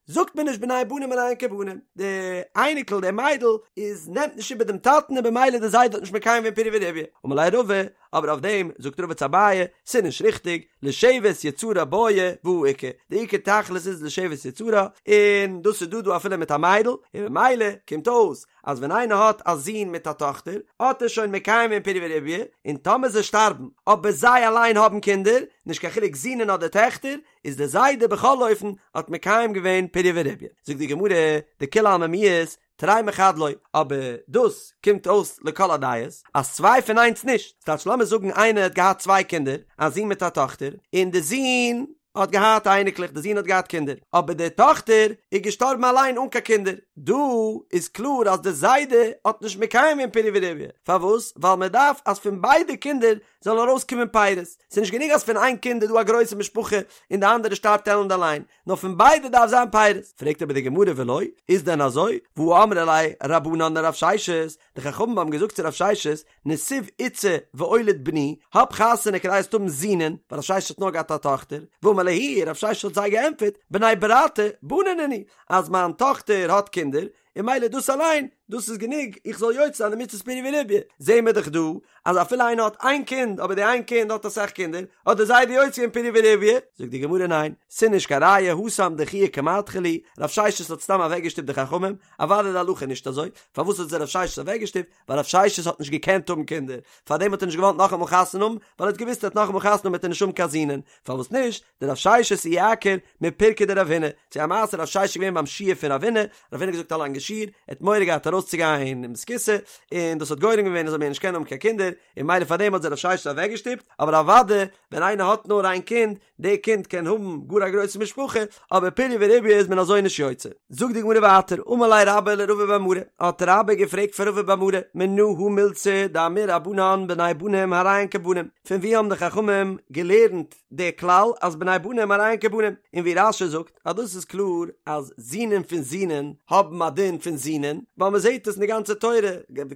A: זאגט מען נישט בני בנים הרי הן כבנים, די אייניקל די מיידל איז נעמט נישט איבער דעם טאטן און במילא די זיידע האט נישט מקיים געווען פריה ורביה, אמר ליה רבא, אבער אויף דעם זאגט רבא צו אביי, ס'איז נישט ריכטיג, לשבת יצרה בעי והא איכא, די עיקר תכלית איז לשבת יצרה, און דאס איז דא דא אפילו מיט א מיידל, און במילא קומט אויס אז ווען איינער האט א זון מיט א טאכטער האט ער שוין מקיים געווען פריה ורביה, און טאמער זיי שטארבן אבער זיי אליין האבן קינדער, נישט קיין חילוק זינען אדער טעכטער, איז דער זיידע בכל אופן האט מקיים געווען פריה ורביה. זאגט די גמרא, דכולי עלמא מיהת, תרי מחד לא, אבער דאס קומט אויס לכל הדעות אז צוויי פון איינס נישט, ס'טייטש לאמיר זאגן איינער האט געהאט צוויי קינדער, א זון מיט א טאכטער, און די זון. האט געהאט אייניקלעך, די זון האט געהאט קינדער, אבער די טאכטער איז געשטארבן אליין אן קיין קינדער, דא איז קלאר אז די זיידע האט נישט מקיים געווען פריה ורביה, פארוואס? ווייל מען דארף אז פון ביידע קינדער זאלן ארויסקומען פירות, ס'איז נישט גענוג אז פון איין קינד איז דא א גרויסע משפחה און די אנדערע שטארבט עלנד אליין, נאר פון ביידע דארף זיין פירות. פרעגט אבער די גמרא ולא, איז דען אזוי? והא אמרי ליה רבנן לרב ששת, די חכמים האבן געזאגט צו רב ששת, נסיב איתתא ואוליד בני, האב חתונה כדי זאלסט האבן זינען, ווייל רב ששת האט נאר געהאט א טאכטער, ואמר להו, רב ששת האט זיי געענטפערט, בני ברתי בני נינהו, אז מיין טאכטער האט קינדער, און ממילא דאס אליין, דאס איז גענוג איך זאל יוצא זיין די מצות פריה ורביה. זעהן מיר דאך דא, אז אפילו איינער האט איין קינד, אבער די איין קינד האט אסאך קינדער, האט די זיידע יוצא געווען פריה ורביה. זאגט די גמרא ניין, ס'איז נישט קיין ראיה, התם דחויי כמדחי להו, רב ששת האט סתם אוועקגעשטופט די חכמים, אוודאי די הלכה איז נישט אזוי, פארוואס האט זיי רב ששת אוועקגעשטופט? ווייל רב ששת האט נישט געקענט האבן קינדער, פארדעם האט ער נישט געוואלט נאכאמאל חתונה האבן, ווייל ער האט געוואוסט ער וועט נאכאמאל חתונה האבן וועט ער נישט האבן קיין זינען, פארוואס נישט? דרב ששת איעקר מפירקא דרב הונא, ס'איז א מעשה רב ששת איז געווען ביים שיעור פון רב הונא, רב הונא האט געזאגט א לאנגע שיעור, ער האט מורא געהאט ארויסצוגיין אין בית הכסא, און דאס האט גורם געווען ער זאל מער נישט קענען האבן קיין קינדער, און ממילא פארדעם האט זיי רב ששת אוועקגעשטופט, אבער אוודאי ווען איינער האט נאר איין קינד, די קינד קען האבן גאר א גרויסע משפחה, אבער פריה ורביה איז מען אזוי נישט יוצא. זאגט די גמרא ווייטער, אמר ליה רבה לרבא בר מרי, האט רבה געפרעגט פאר רבא בר מרי, מנא הא מילתא דאמור רבנן בני בנים הרי הן כבנים, פון וואו האבן די חכמים געלערנט די כלל אז בני בנים הרי הן כבנים, און ווי רש"י זאגט אז דאס איז קלאר אז זינען פון זינען האבן א דין פון זינען, ווייל מען זעט עס אין די גאנצע תורה,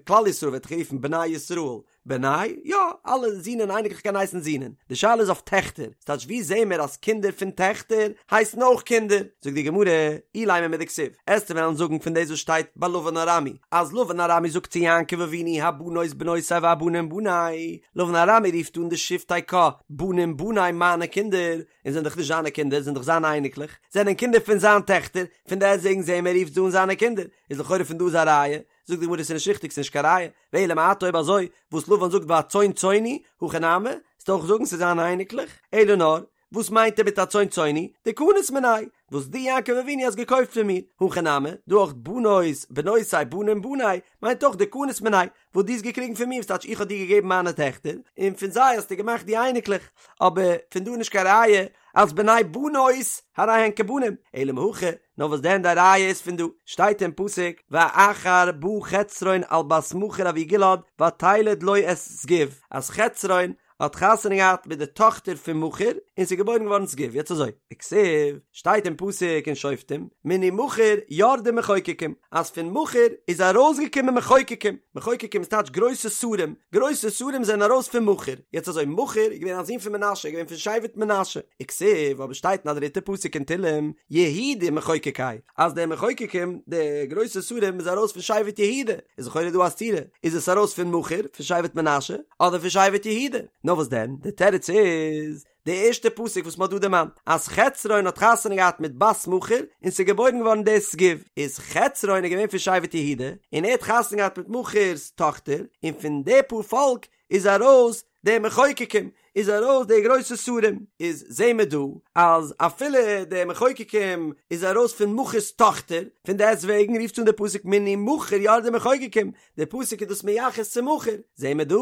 A: כלל ישראל ווערט גערופן בני ישראל, בני, יא, אלע זינען אייניקלעך קען הייסן זינען, די שאלה איז אויף טעכטער, ס'טייטש ווי זעהן מיר אז קינדער פון טעכטער הייסן אויך קינדער? זאגט די גמרא, אילימא מדכתיב, עסטו וועלן זאגן פון דאס וואס שטייט ביי לבן ארמי, אז לבן ארמי זאגט צו יעקב אבינו הבנות בנותי והבנים בני, לבן ארמי רופט אן די שבטי קה, בנים בני מיינע קינדער, און זענען דאך נישט זיינע קינדער, זענען דאך זיינע אייניקלעך, זענען קינדער פון זיין טעכטער, פון דעסטוועגן זעהן מיר ער רופט זיי אן זיינע קינדער, איז לכאורה פון דא איז א ראיה, זאגט די גמרא ס'איז נישט ריכטיג ס'איז נישט קיין ראיה, ואלא מעתה אויב אזוי וואס לבן זאגט והצאן צאני, הכי נמי, וועסטו אויך זאגן ס'איז זיינע אייניקלעך, אלא נאר, וואס מיינט ער מיט הצאן צאני, דקנית מינאי, וואס דו יעקב אבינו האסט געקויפט פון מיר, הכא נמי, דא אויך בנות בנותי בנים בני, מיינט אויך דקנית מינאי, וואס דו האסט געקריגן פון מיר, וואס טייטש איך האב דיר געגעבן מיינע טעכטער, און פון זיי האסטו געמאכט די אייניקלעך, אבער פון דא איז נישט קיין ראיה אז בני בנות הרי הן כבנים, אלא מהכא, נאר וואס דען די ראיה איז פון דא, שטייט אין פסוק, ואחר בא חצרון על בת מכיר אבי גלעד ותלד לו את שגוב, אז חצרון האט חתונה געהאט מיט די טאכטער פון מכיר און ס'איז געבוירן געווארן שגוב, יעצט אזוי, וכתיב, שטייט אין פסוק אין שופטים, מני מכיר ירדו מחוקקים, אז פון מכיר איז ארויסגעקומען מחוקקים, מחוקקים איז טייטש גרויסע שרים, גרויסע שרים זענען ארויס פון מכיר, יעצט אזוי, מכיר איז געווען א זון פון מנשה, איז געווען פון שבט מנשה, וכתיב, אבער שטייט אין א דריטע פסוק אין תהלים, יהודה מחוקקי, אז די מחוקקים, די גרויסע שרים איז ארויס פון שבט יהודה, איז לכאורה דא א סתירה, איז עס ארויס פון מכיר, פון שבט מנשה, אדער פון שבט יהודה? נאר וואס דען, די תירוץ איז, די ערשטע פסוק וואס מ'האט דא דערמאנט, אז חצרון האט חתונה געהאט מיט בת מכיר, און ס'איז געבוירן געווארן דער שגוב, איז חצרון איז געווען פון שבט יהודה, און ער האט חתונה געהאט מיט מכיר'ס טאכטער, און פון די פאר פאלק איז ארויס די מחוקקים, איז ארויס די גרויסע שרים, איז זעהן מיר דא אז אפילו די מחוקקים איז ארויס פון מכיר'ס טאכטער, פון דעסט וועגן רופט אן די פסוק מני מכיר ירדו מחוקקים, די פסוק איז דאס מייחס צו מכיר, זעהן מיר דא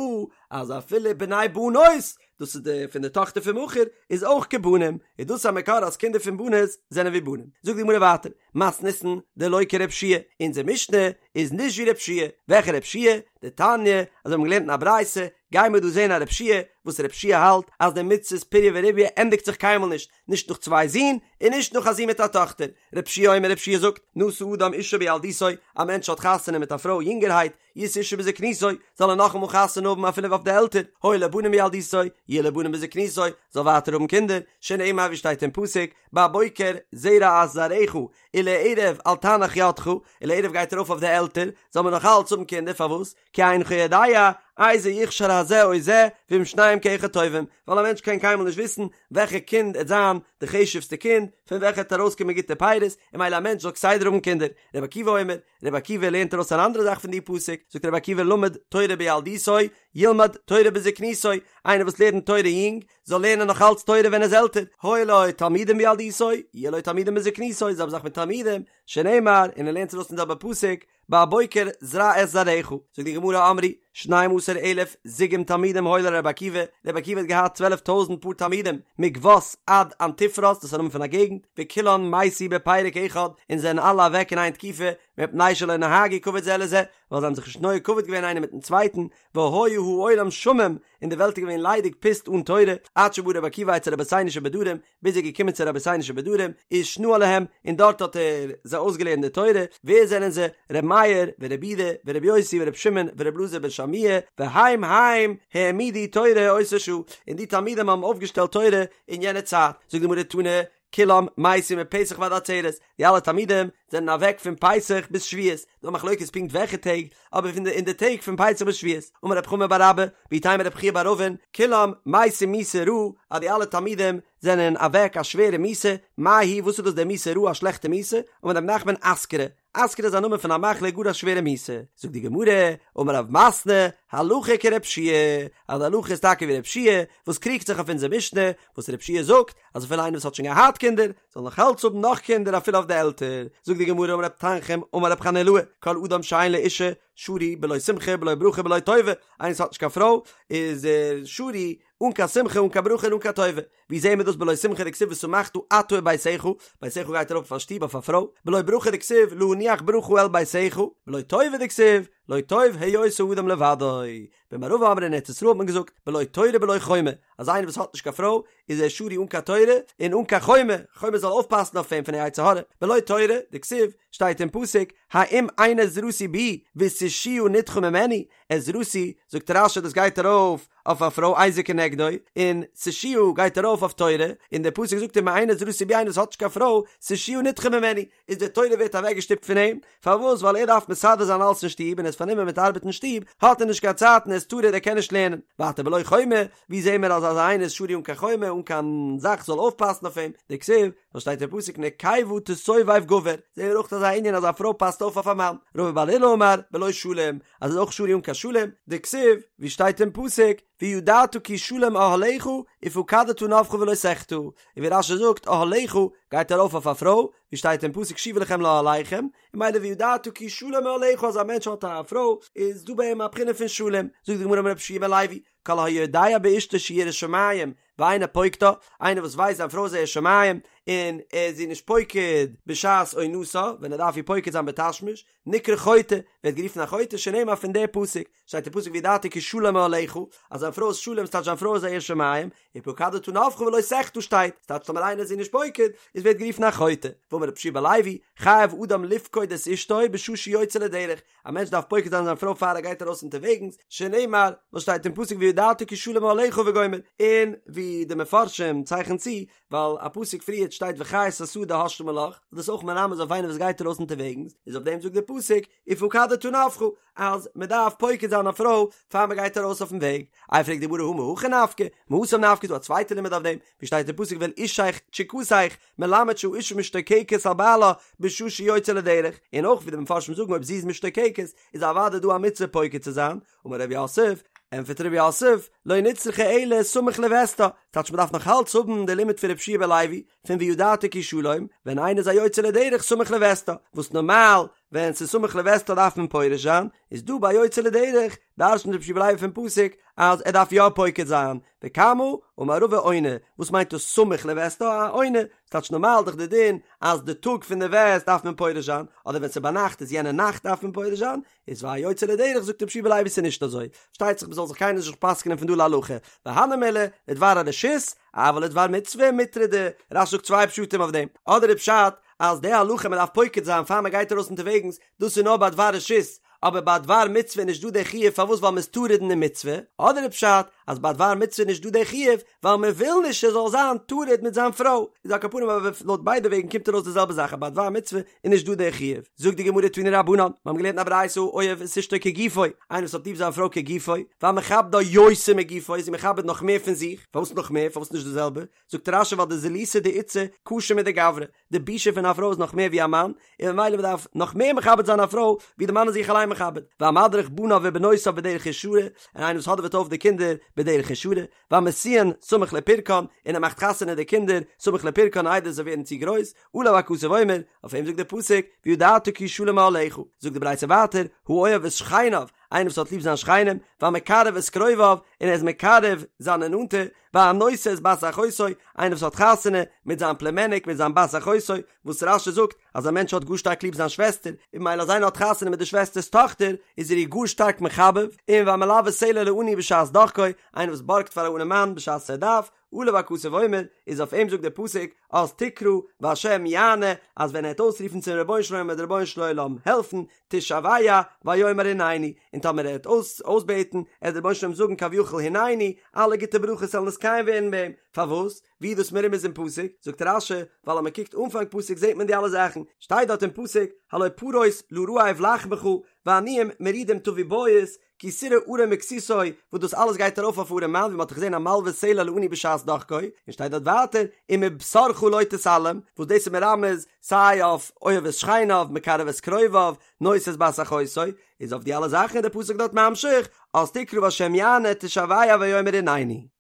A: אז אפילו בני בנות, דאס איז די פון די טאכטער פון מכיר, איז אויך כבנים, איז דאס א מקור אז קינדער פון בנות זענען ווי בנים. זאגט די גמרא ווייטער, מתניתין דלא כרבי יהושע, אונזער משנה איז נישט ווי רבי יהושע, וועלכע רבי יהושע? דתניא, אזוי האבן מיר געלערנט אין א ברייתא, גייען מיר דא זען א רבי יהושע, וואס רבי יהושע האלט אז די מצות פריה ורביה ענדיגט זיך קיינמאל נישט, נישט נאך צוויי זין, און נישט נאך א זון מיט א טאכטער. רבי יהושע אומר רבי יהושע זאגט, נשא אדם אישה בילדותו, א מענטש האט חתונה מיט א פרוי יונגערהייט, ישא אישה בזקנותו, זאל ער נאכאמאל חתונה האבן אפילו אויף די עלטער, היו לו בנים בילדותו, יהיו לו בנים בזקנותו, זאל ווייטער האבן קינדער, שנאמר ווי שטייט אין פסוק, בבוקר זרע את זרעך, ולערב אל תנח ידך, ולערב גייט ארויף אויף די עלטער, זאל מען נאך אלץ האבן קינדער, פארוואס? כי אינך יודע, איזה יכשר הזה או זה, ואם שניהם כאחד טובים, ווייל א מענטש קען קיינמאל נישט וויסן וועלכע קינד עט זיין די חשוב'סטע קינד, פון וועלכע עט ארויסקומען גוטע פירות, און ממילא א מענטש זאל כסדר האבן קינדער. רבי עקיבא אומר, רבי עקיבא לערנט ארויס אן אנדערע זאך פון די פסוק, זאגט רבי עקיבא למד תורה בילדותו, ילמד תורה בזקנותו, איינער וואס לערנט תורה יונג, זאל לערנען נאך אלץ תורה ווען ער איז עלטער, היו לו תלמידים בילדותו, יהיו לו תלמידים בזקנותו, זעלבע זאך מיט תלמידים, שנאמר, און ער לערנט עס ארויס פון די זעלבע פסוק, בבוקר זרע את זרעך, זאגט די גמרא אמרו, שנים עשר אלף זוגים תלמידים היו לרבי עקיבא, רבי עקיבא האט געהאט צוועלף טויזנט פאר תלמידים, מגבת עד אנטיפרס, דאס איז א נאמען פון א געגנט, וכולן מתו בפרק אחד, און זענען אלע אוועק אין איין תקופה, מפני שלא נהגו כבוד זה לזה, ווייל זיי האבן זיך נישט נוהג כבוד געווען איינער מיטן צווייטן, והיה העולם שמם, און די וועלט איז געווען ליידיג פוסט אן תורה, עד שבא רבי עקיבא אצל רבותינו שבדרום, ביז ער איז געקומען צו רבותינו שבדרום, ושנאה להם, און דארט האט ער זיי אויסגעלערנט די תורה, ווער זענען זיי? ר' מאיר, ור' יהודה, ור' יוסי, ור' שמעון, ור' אלעזר בן שמוע, והם הם העמידו תורה אותה שעה, און די תלמידים האבן אויפגעשטעלט תורה אין יענע צייט, זאגט די גמרא תנא, כולם מתו מפסח ועד עצרת, די אלע תלמידים זענען אוועק פון פסח ביז שבועות, דא מחלוקת פונקט וועלכע טעג, אבער פון די אין די טעג פון פסח ביז שבועות, אמר רב חמא בר אבא, ואיתימא רב חייא בר אבין, כולם מתו מיתה רעה, אז די אלע תלמידים זענען אוועק א שווערע מיתה, מאי היא וואס איז דאס די מיתה רעה א שלעכטע מיתה, אמר רב נחמן אסכרה, אסכרה איז א נאמען פון א מחלה גאר א שווערע מיתה, זאגט די גמרא, אמר רב מתנה, הלכה כר' יהושע, אז די הלכה איז טאקע ווי ר' יהושע, וואס קריגט זיך אויף אונזער משנה, וואס ר' יהושע זאגט, אז אפילו איינער וואס האט שוין געהאט קינדער, זאל נאך אלץ האבן נאך קינדער אפילו אויף די עלטער, זאגט די גמרא אמר רב תנחום אמר רב חנילאי, כל אדם שאין לו אישה, שרוי בלא שמחה בלא ברכה בלא טובה, איינער וואס האט נישט קיין פרוי, איז ער שרוי אן קיין שמחה אן קיין ברכה און אן קיין טובה, ווי זעהן מיר דאס בלא שמחה דכתיב ושמחת אתה וביתך, ביתך גייט ארויף אויף א שטוב אויף א פרוי, בלא ברכה דכתיב להניח ברכה אל ביתך, בלא טובה דכתיב לא טוב היות האדם לבדו, במערבא אמרי אין ארץ ישראל האט מען געזאגט בלא תורה בלא חומה, אז איינער וואס האט נישט קיין פרוי איז ער שרוי אן קיין תורה און אן קיין חומה, חומה זאל אויפפאסן אויף אים פון די יצר הרע, בלא תורה, דכתיב, שטייט אין פסוק, האם אין עזרתי בי ותושיה נדחה ממני, עזרתי, זאגט רש"י דאס גייט ארויף אויף א פרוי עזר כנגדו, און תושיה גייט ארויף אויף תורה, און דער פסוק זאגט אם אין עזרתי בי איינער וואס האט נישט קיין פרוי, תושיה נדחה ממני, איז די תורה ווערט אוועקגעשטופט פון אים, פארוואס ווייל ער דארף מסדר זיין אלעס אין שטוב און ער איז פארנומען מיט ארבעט אין שטוב, האט ער נישט קיין צייט און ער איז טרוד ער קען נישט לערנען. ווייטער בלא חומה, ווי זעהן מיר אז אזא איינער איז שרוי אן קיין חומה, אן קיין זאך זאל אויפפאסן אויף אים, דכתיב, וואס שטייט אין פסוק נקבה תסובב גבר, זעהן מיר אויך אזא ענין אז א פרוי פאסט אויף אויף א מאן, רבא בר עולא אמר, בלא שלום, אז ער איז אויך שרוי אן קיין שלום, דכתיב, ווי שטייט אין פסוק, וידעת כי שלום אהלך ופקדת נוך ולא תחטא, און ווי רש"י זאגט אהלך גייט ארויף אויף א פרוי, ווי שטייט אין פסוק שובו לכם לאהליכם, און ממילא וידעת כי שלום אהלך אז א מענטש האט א פרוי איז דא ביי אים א בחינה פון שלום, זאגט די גמרא אמר רבי יהושע בן לוי, כל היודע באשתו שהיא יראת שמים ואינו פוקדה, איינער וואס ווייסט זיין פרוי איז א ירא שמים און ער איז איר נישט פוקד בשעת עונתה, ווען ער דארף איר פוקד זיין בתשמיש, נקרא חוטא, ווערט גערופן א חוטא שנאמר פון די פסוק, שטייט אין פסוק וידעת כי שלום אהלך, אז זיין פרוי איז שלום ס'טייטש זיין פרוי איז א ירא שמים, ופקדת נוך ולא תחטא שטייט, ס'טייטש טאמער איינער איז איר נישט פוקד, איז ווערט גערופן א חוטא. ואמר רבי יהושע בן לוי, חייב אדם לפקוד את אשתו בשעה שיוצא לדרך, א מענטש דארף פוקד זיין זיין פרוי פאר ער גייט ארויס אונטערוועגנס, שנאמר, וואס שטייט אין פסוק וידעת כי שלום אהלך וגומר, און ווי די מפרשים צייכן צו, ווייל א פסוק פריערט שטייט וחית השדה השלמה לך, איז דאס אויך מרמז אויף איינער וואס גייט ארויס אונטערוועגנס, איז אויף דעם זאגט דער פסוק ופקדת נוך, אז מען דארף פוקד זיין א פרוי פאר מען גייט ארויס אויפן וועג. איי פרעגט די גמרא הא מהכא נפקא, מהתם נפקא איז דא א צווייטע לימוד אויף דעם, ווי שטייט אין פסוק ואל אישך תשוקתך, מלמד שהאשה משתוקקת על בעלה בשעה שיוצא לדרך, און אויך ווי די מפרשים זאגן אויב זי איז משתוקקת איז אוודאי דא א מצוה פוקד צו זיין, אמר רב יוסף, ענטפערט רב יוסף, לא נצרכה אלא סמוך לוסתה, טייטש מ'דארף נאך אלץ האבן די לימוד פון רבי יהושע בן לוי, פון וידעת כי שלום, ווען איינער איז א יוצא לדרך סמוך לוסתה, וואס נארמאל ווען ס'איז סמוך לוסתה דארף מען פורש זיין, איז דא ביי יוצא לדרך דרש'נט רבי יהושע בן לוי פון פסוק אז ער דארף יא פוקד זיין, וכמה, אמר רבא עונה, וואס מיינט דאס סמוך לוסתה, א עונה, ס'טייטש נארמאל דאך די דין אז די טאג פון די וסת דארף מען פורש זיין, אדער ווען ס'איז ביינאכט איז יענע נאכט דארף מען פורש זיין, איז ביי יוצא לדרך זאגט רבי יהושע בן לוי ס'איז נישט אזוי, פארשטייט זיך מ'זאל זיך קיינער נישט פסק'נען פון דא להלכה, והני מילי לדבר הרשות, אבל לדבר מצוה מטרדי, רש"י זאגט צוויי פשטים אויף דעם, אדער איז פשט אז די הלכה מ'דארף פוקד זיין פאר מ'גייט ארויס אונטערוועגנס, דאס איז נאר ביי דבר רשות, אבער ביי דבר מצוה איז נישט דא די חיוב פארוואס ווייל מ'איז טרוד אין די מצוה, אדער איז פשט אז ביי דבר מצוה איז נישט דא די חיוב ווייל מ'וויל נישט ער זאל זיין טרוד מיט זיין פרוי, איז על כל פנים אבער לויט ביידע וועגן קומט ארויס די זעלבע זאך אז ביי דבר מצוה איז נישט דא די חיוב. זאגט די גמרא תנו רבנן, מיר האבן געלערנט אין א ברייתא האוהב את אשתו כגופו, איינער וואס האט ליב זיין פרוי כגופו, והמכבדה יותר מגופו, איז איר מכבד נאך מער פון זיך, פארוואס נאך מער, פארוואס נישט די זעלבע, זאגט רש"י ווייל דזילותא דאיתתא קשה מדגברא, די בושה פון א פרוי איז נאך מער ווי א מאן, און ממילא מען דארף נאך מער מכבד זיין א פרוי ווי די מאן איז זיך אליין מכבד, והמדריך בניו ובנותיו בדרך ישרה, און איינער וואס האדעוועט אויף די קינדער. בדרך ישרה, והמשיאן סמוך לפרקן, און ער מאכט חתונה די קינדער סמוך לפרקן איידער זיי ווערן צו גרויס, עליו הכתוב אומר, אויף אים זאגט דער פסוק, וידעת כי שלום אהלך, זאגט די ברייתא ווייטער, האוהב את שכניו, איינער וואס האט ליב זיין שכנים, והמקרב את קרוביו, און ער איז מקרב זיינע נאנטע, והנושא את בת אחותו, איינער וואס האט חתונה מיט זיין פלומעניק מיט זיין בת אחותו, וואס רש"י זאגט אז א מענטש האט גאר שטארק ליב זיין שוועסטער, און ממילא אז איינער האט חתונה מיט די שוועסטער'ס טאכטער, איז ער איר גאר שטארק מחבב, און והמלוה סלע לעני בשעת דחקו, איינער וואס בארגט פאר א ארעמאן בשעת ער דארף, עליו הכתוב אומר, איז אויף אים זאגט דער פסוק, אז תקרא והשם יענה, אז ווען ער וועט אויסרופן צום רבונו של עולם וועט דער רבונו של עולם העלפן, תשוע ויאמר הנני, און טאמער ער וועט אויס אויסבעטן, עט דער רבונו של עולם זאגן כביכול הנני, אלע גוטע ברכות זאלן נתקיים ווערן ביי אים, פארוואס? ווי איז דאס מרומז אין פסוק? זאגט רש"י, ווייל אז מען קוקט אנפאנג פסוק זעט מען די אלע זאכן, שטייט דארט אין פסוק, הלא פרוס לרעב לחמך, ועניים מרודים תביא בית, כי תראה ערום וכסותו, וואס דאס אלעס גייט ארויף אויף ארעם מאן, ווי מען האט דאך געזען המלוה סלע לעני בשעת דחקו, און שטייט דארט ווייטער, ומבשרך לא תתעלם, וואס דאס איז מרמז סיי אויף אוהב את שכניו, מקרב את קרוביו, נושא את בת אחותו, איז אויף די אלע זאכן איז דער פסוק דארט ממשיך, אז תקרא והשם יענה תשוע ויאמר הנני.